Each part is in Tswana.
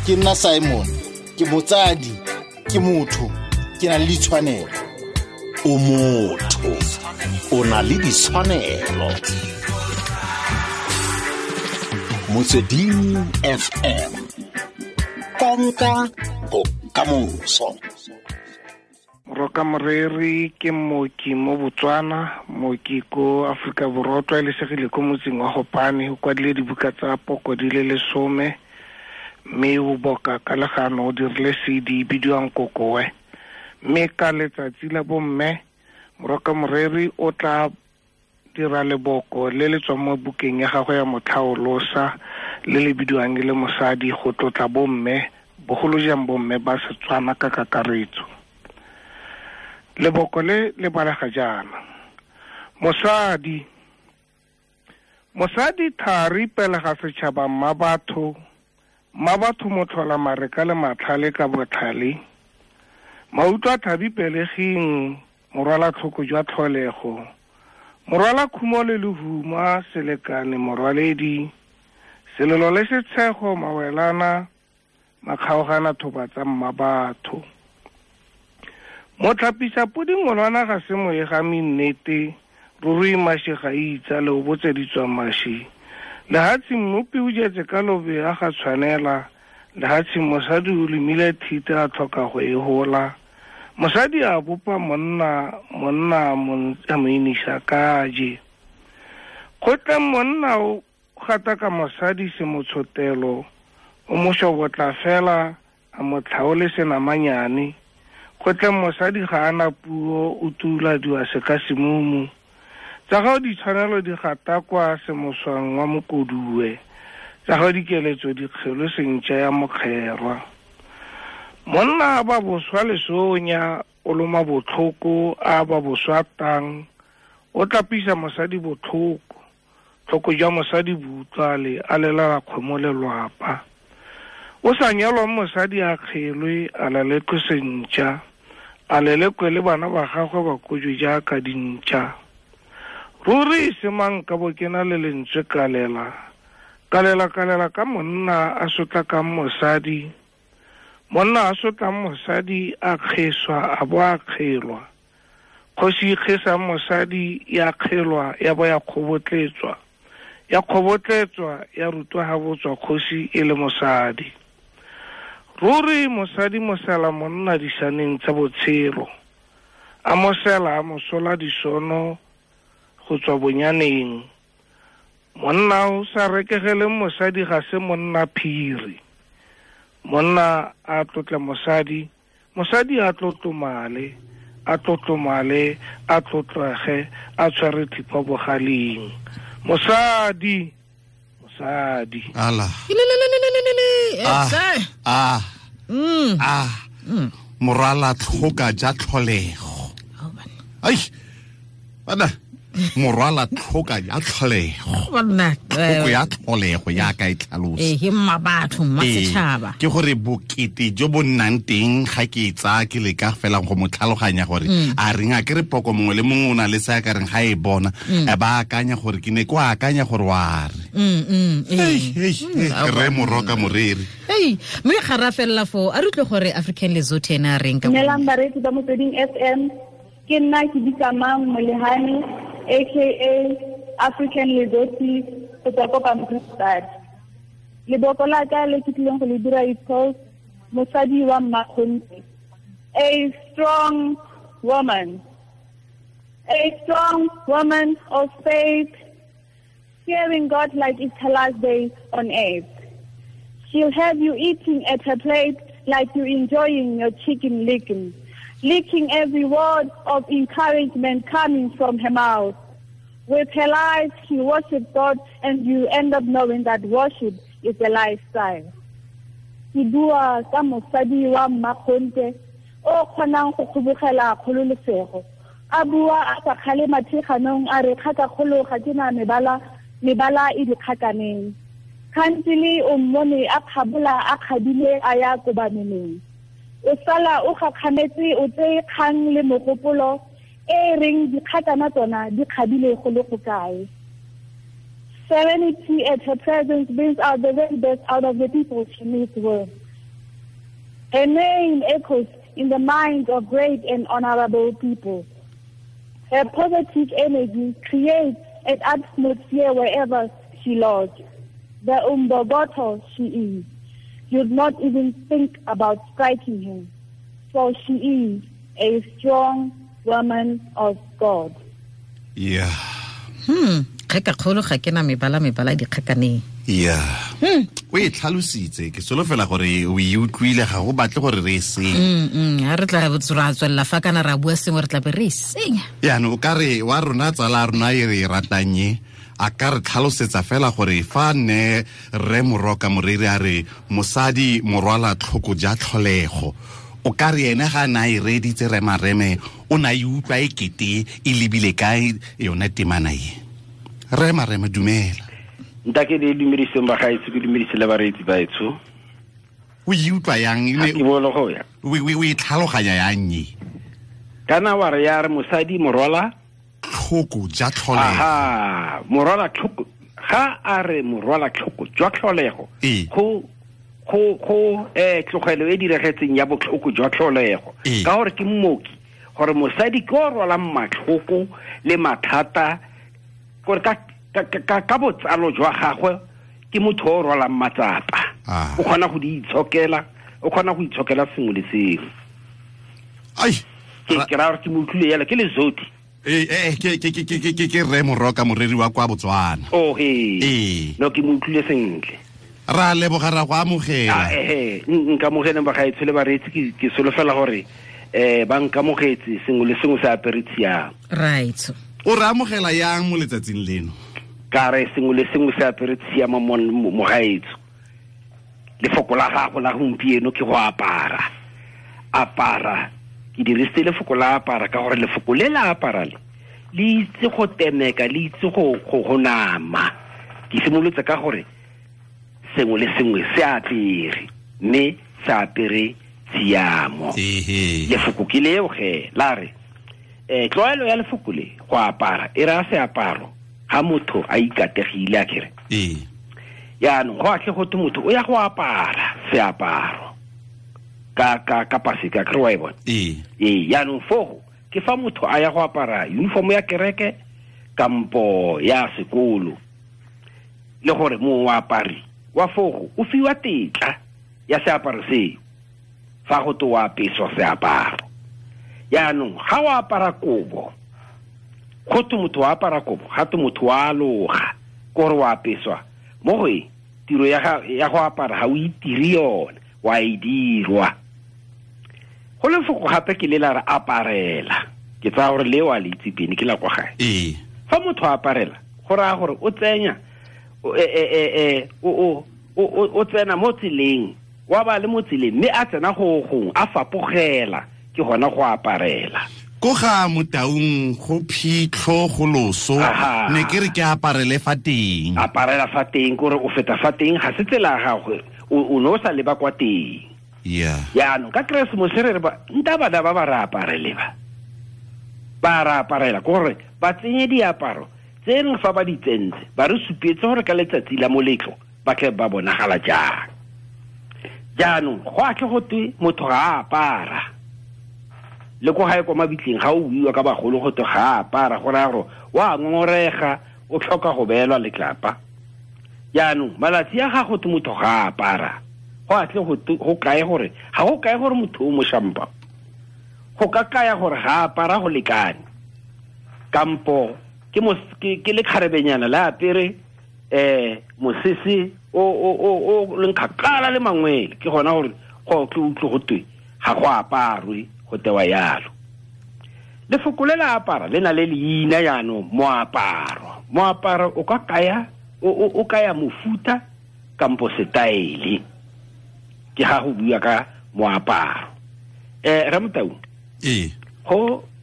Ke nna Simon, ke motsadi, ke motho, ke na le ditshwanelo. O motho, o na le ditshwanelo. Motsweding FM, konka bokamoso. Moroka Moreri ke mooki mo Botswana, mooki ko Aforika Borwa, o tlwaelesegile ko motseng wa Gopane, o kwadile dibuka tsa poko di le 10, mme o boka ka legano, o dirile CD bidiwang Kokoe. Mme ka letsatsi la bomme, Moroka Moreri o tla dira leboko le le tswang mo bukeng ya gagwe ya Motlhaolosa, le le bidiwang e le Mosadi, go tlotla bomme, bogolo jang bomme ba Setswana ka kakaretso. Leboko le le balega jaana: Mosadi, mosadi thari pele ga setšhaba, mma batho, mma batho motlhola mareka le matlhale ka botlhale, mautlwa thabi peleging, morwala tlhoko jwa tlholego, morwala khumo le lehuma, selekane morwaledi, selelo le setshego, mawelana, makgaogana thoba tsa mma batho. Motlhapisa podi ngolwana ga se moegami nnete, ruri mashi ga itsa le o botseditswa mashi. Lehatshe mmopi o jetse ka lobe a ga tshwanela, lehatshe mosadi o lemile thite a tlhoka go e hola. Mosadi a bopa monna, monna a mo inisa kaje. Kgotla monna o gataka mosadi se motshotelo, o mo shobotla fela a mo tlhaole senamanyane. Kgotla mosadi ga ana puo, o tuladiwa seka semumu. Tsa gago ditshwanelo di gatakwa semoswang wa mokoduwe, tsa gago dikeletso di kgelo sentšha ya mokgerwa. Monna a ba boswa lesonya, o loma botlhoko, a ba boswa tang, o tlapisa mosadi botlhoko, tlhoko jwa mosadi bo utlwale, a lelala kgomo lelwapa. O sa nyalwang mosadi a kgelwe, a lelekwe sentšha, a lelekwe le bana ba gagwe ba kojwe jaaka dintšha. Ruri e se mang ka bo ke na le lentswe kalela, kalela kalela ka monna a sotlakang mosadi, monna a sotlang mosadi a kgeswa a bo a kgelwa. Kgosi e kgesang mosadi ya kgelwa ya bo ya kgobotletswa, ya kgobotletswa ya rutwa ha botswa kgosi e le mosadi. Ruri mosadi mosela monna disaneng tsa botshelo, a mosela a mosola disono go tswa bonyaneng. Monna o sa rekegeleng mosadi ga se monna phiri. Monna a tlotla mosadi, mosadi a tlotlomale, a tlotlomale, a tlotlege, a tshware thipa bogaleng. Mosadi, mosadi. Ala. Ah. Ah. Morwala tlhoka ja tlholego. Ai. Bana. Morwala tlhoka ya tlholego. Banna. Tlhoko ya tlholego ya ka e tlhalosa. Ke mma batho, mma setšhaba. Ke gore bokete jo bo nnang teng ga ke e tsaya ke leka fela go mo tlhaloganya gore a reng a ke re poko mongwe le mongwe o na le se a ka reng ga e bona, a ba akanya gore ke ne ko akanya gore wa re. Re Moroka Moreri. Hey, mme ga ra felela foo, a re utlwe gore African Lesotho ena a reng ka Dumelang bareetsi ba Motsweding FM. Ke nna ke bitsa Mang Molehane, aka African Lesotho, go tswa ko Pampierstad. Leboko la ka le ke tlileng go le dira is called Mosadi wa Mmakgonthe. A strong woman, a strong woman of faith, fearing God like it's her last day on earth. She'll have you eating at her plate like you're enjoying your chicken licking, licking every word of encouragement coming from her mouth. With her life, she worships God, and you end up knowing that worship is a lifestyle. Ke bua ka mosadi wa mmakgonthe o kgonang go kgobogela kgololosego. A bua a sa kgale mathiganong a re kgakakgolo ga ke na mebala, mebala e dikgakaneng. Kgantele o mmone a kgabola a kgadile a ya kobameneng. O sala o gakgametse o tseye kgang le mogopolo e reng dikgakana tsona di kgabile go le go kae. Serenity at her presence brings out the very best out of the people she meets with. Her name echoes in the minds of great and honorable people. Her positive energy creates an atmosphere wherever she lodges. The umbogoto she is. You'd not even think about striking her, for she is a strong woman of God. Yeah. Kgeka kgolo ga ke na mebala dikgakaneng. Yeah. O e tlhalositse ke solofela gore o e utlwile ga go batle gore re e senye. Ha re tla ra tswelela fa kana ra bua sengwe re tla be re e senya. Yaanong o ka re wa rona tsala rona e re e ratang e a ka re tlhalosetsa fela gore fa ne re Moroka Moreri a re mosadi morwala tlhoko ja tlholego, o ka re ene ga na e reditse re Mareme o na e utlwa e kete e lebile kae yone temana e. Re Mareme, dumela. Ntake le dumediseng ba gaetsho, ke dumedise le bareetsi ba etsho. O e utlwa yang? Ke bolo go ya. O e tlhaloganya yang e? Kana wa re ya re mosadi morwala tlhoko ja tlholego. Aha, morwala tlhoko. Ga a re morwala tlhoko jwa tlholego. Go tlogelo e diregetseng ya botlhoko jwa tlholego. Ka gore ke mmoki, gore mosadi ke o rwalang matlhoko le mathata, gore ka botsalo jwa gagwe ke motho o rwalang matsapa. O kgona go di itshokela, o kgona go itshokela sengwe le sengwe. Ai, ke ra gore ke mo utlwile yalo, ke Lezoti. Ke re Moroka Moreri wa kwa Botswana. Oh he. No, ke mo utlwile sentle. Ra leboga, ra go amogela. Nka amogele ba gaetsho le bareetsi, ke solofela gore ba nkamogetse sengwe le sengwe se apere tshiamo. Right. O re amogela yang mo letsatsing leno? Ka re sengwe le sengwe se apere tshiamo mo gaetsho. Lefoko la gago la gompieno ke go apara. Apara. Ke dirisitse lefoko la apara ka gore lefoko le la apara le le itse go temeka, le itse go nama. Ke simolotse ka gore sengwe le sengwe se apere, mme se apere tshiamo. Lefoko ke leo ge la re tlwaelo ya lefoko le go apara e raya seaparo ga motho a ikategile a kere. Yaanong go atle go twe motho o ya go apara seaparo ka paseka, kere wa e bona. Yaanong fogo ke fa motho a ya go apara uniform ya kereke kampo ya sekolo, le gore moapari wa fogo o fiwa tetla ya seaparo seo fa go twe o apeswa seaparo. Yaanong ga o apara kobo, go twe motho wa apara kobo, ga twe motho wa aloga, ke gore o apeswa mo go e tiro ya go apara ga o itire yone, wa e dirwa. Go lefoko gape ke le la re aparela, ke tsaya gore le wa le itse pene ke la kwa gae. Fa motho a aparela go raya gore o tsenya o tsena mo tseleng, wa ba le mo tseleng mme a tsena go gongwe a fapogela, ke gona go aparela. Ko ga Motaung go phitlho go loso, ne ke re ke aparele fa teng. Aparela fa teng kore o feta fa teng, ga se tsela ya gagwe, o ne o sa leba kwa teng. Yeah. Yaanong ka Keresemose re re ba nta bana ba re aparele ba re aparela, ke gore ba tsenye diaparo tse reng fa ba di tsentse ba re supetse gore ka letsatsi la moletlo ba tle ba bonagala jang. Jaanong go atle go twe motho ga a apara, le ko gae kwa mabitleng ga o buiwa ka bagolo go twe ga a apara, go raya gore wa ngongorega, o tlhoka go beelwa letlapa. Jaanong malatsi a ga go twe motho ga a apara, go atle go kae gore ga go kae gore motho o mošampa, go ka kaya gore ga a apara go lekane, kampo ke le kgarebenyana le apere mosese o leng kgakala le mangwele, ke gona gore go tle utlwe go twe ga go aparwe, go tewa yalo. Lefoko le la apara le na le leina jaanong, moaparo. Moaparo o ka kaya o kaya mofuta kampo setaele, ke ga go bua ka moaparo. Ramotau,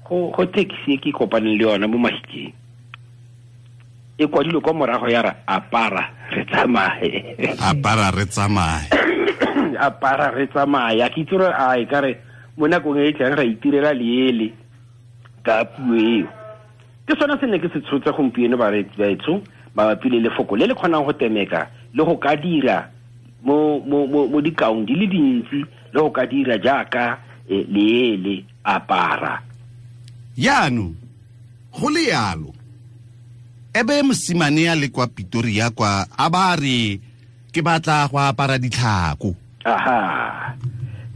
go taxi e ke kopaneng le yona mo Mahikeng e kwadilwe kwa morago ya re apara re tsamaye. Apara re tsamaye. Apara re tsamaye. Ke itse gore a e ka re mo nakong e tlang ra itirela leele ka puo eo. Ke sone se ne ke se tshotse gompieno bareetsi baetsho mabapi le lefoko le le kgonang go temeka le go ka dira mo dikaong di le dintsi le o ka dira jaaka leele apara. Jaanong go le yalo ebe mosimane ya le kwa Pretoria kwa a ba re ke batla go apara ditlhako. Aha,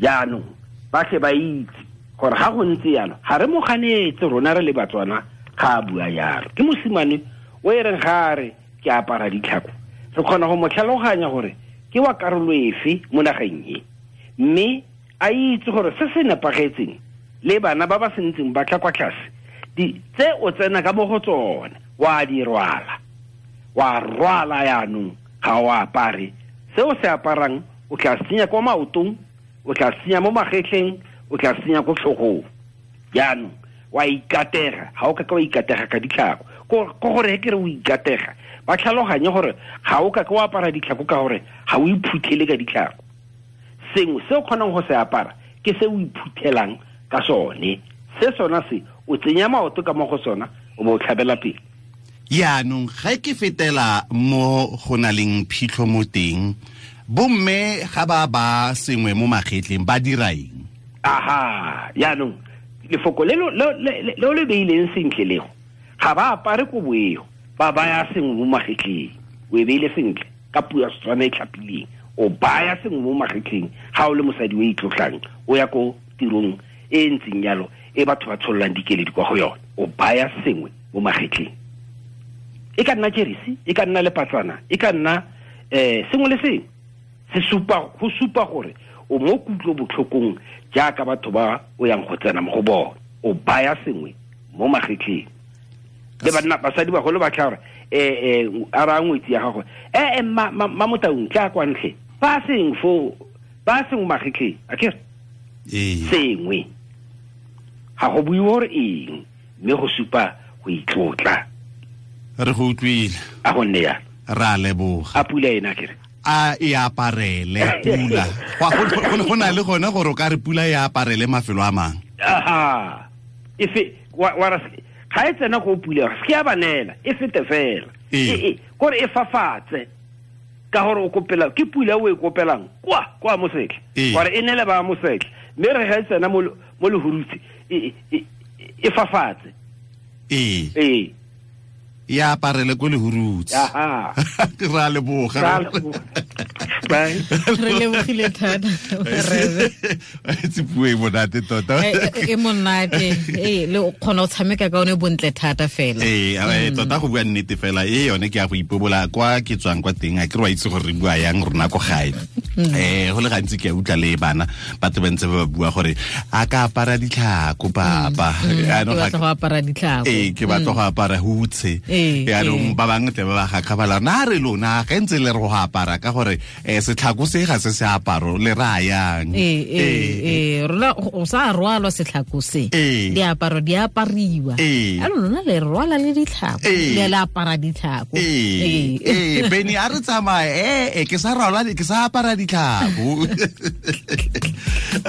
jaanong ba tle ba itse gore ga go ntse yalo ga re mo ganetse rona re le Batswana ga a bua yalo. Ke mosimane o e reng ga a re ke apara ditlhako, re kgona go mo tlhaloganya gore ke wa karolo efe mo nageng e, mme a itse gore se se nepagetseng le bana ba ba sentseng ba tla kwa tlase di tse o tsena ka mo go tsone wa di rwala, wa rwala yaanong ga o apare. Se o se aparang o tla senya kwa maotong, o tla senya mo magetleng, o tla senya ko tlhogong. Jaanong wa ikatega, ga o ka wa ikatega ka ditlhako. Ko gore ke re o ikatega, ba tlhaloganye gore ga o ka wa apara ditlhako ka gore ga o iphuthele ka ditlhako. Sengwe se o kgonang go se apara ke se o iphuthelang ka sone, se sona se o tsenya maoto ka mo go sona o bo o tlhabela pele. Jaanong ga ke fetela mo go na leng phitlho mo teng, bomme ga ba ba sengwe mo magetleng ba dira eng? Aha, jaanong lefoko le le beileng sentle lego, ga ba apare kobo eo, ba baya sengwe mo magetleng. O e beile sentle ka puo ya Setswana e tlhapileng, o baya sengwe mo magetleng ga o le mosadi o itlotlang o ya ko tirong e ntseng yalo e batho ba tshololang dikeledi kwa go yone, o baya sengwe mo magetleng. E ka nna jeresi, e ka nna lepatsana, e ka nna sengwe le sengwe se supa go supa gore o mo kutlo botlhokong jaaka batho ba o yang go tsena mo go bona. O baya sengwe mo magetleng. Le banna basadi bagolo ba tla gore a ra ngwetsi ya gagwe ma Motaung tla kwa ntle ba seng fo ba sengwe magetleng a ke sengwe ga go buiwe gore eng, mme go supa go itlotla. Re go utlwile, a go nne ya ra leboga. A pula ena kere a e aparele pula. Go na le gone gore o ka re pula e aparele mafelo a mangwe. Aha, efe wa ra ga e tsena go pula se ke a banela e fete fela kore e fafatse ka gore o kopela ke pula o e kopelang kwa kwa mosetlha gore e nele ba mosetlha, mme re ga e tsena mo lehurutse e fafatse ee ya aparele ko lehurutse. Aha, ra leboga. Bye. Re lebogile thata rebe. Itse puo e monate tota. E monate. Le o kgona go tshameka ka one bontle thata fela. Tota go bua nnete fela e yone ke ya go ipobola kwa ke tswang kwa teng, a ke re wa itse gore re bua yang rona ko gae. Go le gantsi ke a utlwa le bana batho ba ntse ba bua gore a ka apara ditlhako papa. Ke batla go apara ditlhako. Ke batla go apara hutshe. Yaanong ba bangwe tle ba ba gakgabala na re lona ga ntse le re go apara ka gore setlhako se ga se se aparo le rayang. Rona o sa rwalwa setlhako se, diaparo di apariwa, a lona le rwala le ditlhako le le apara ditlhako. Beni a re tsamaye ke sa rwala ke sa apara ditlhako.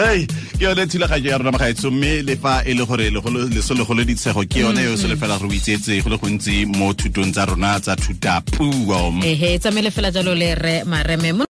Ei, ke yone thulaganyo ya rona magaetsho, mme le fa e le gore leso legolo ditshego ke yone yo se le fela re o itsetse go le gontsi mo thutong tsa rona tsa thutapuo. Ehe, tsamaile fela jalo le re Mareme.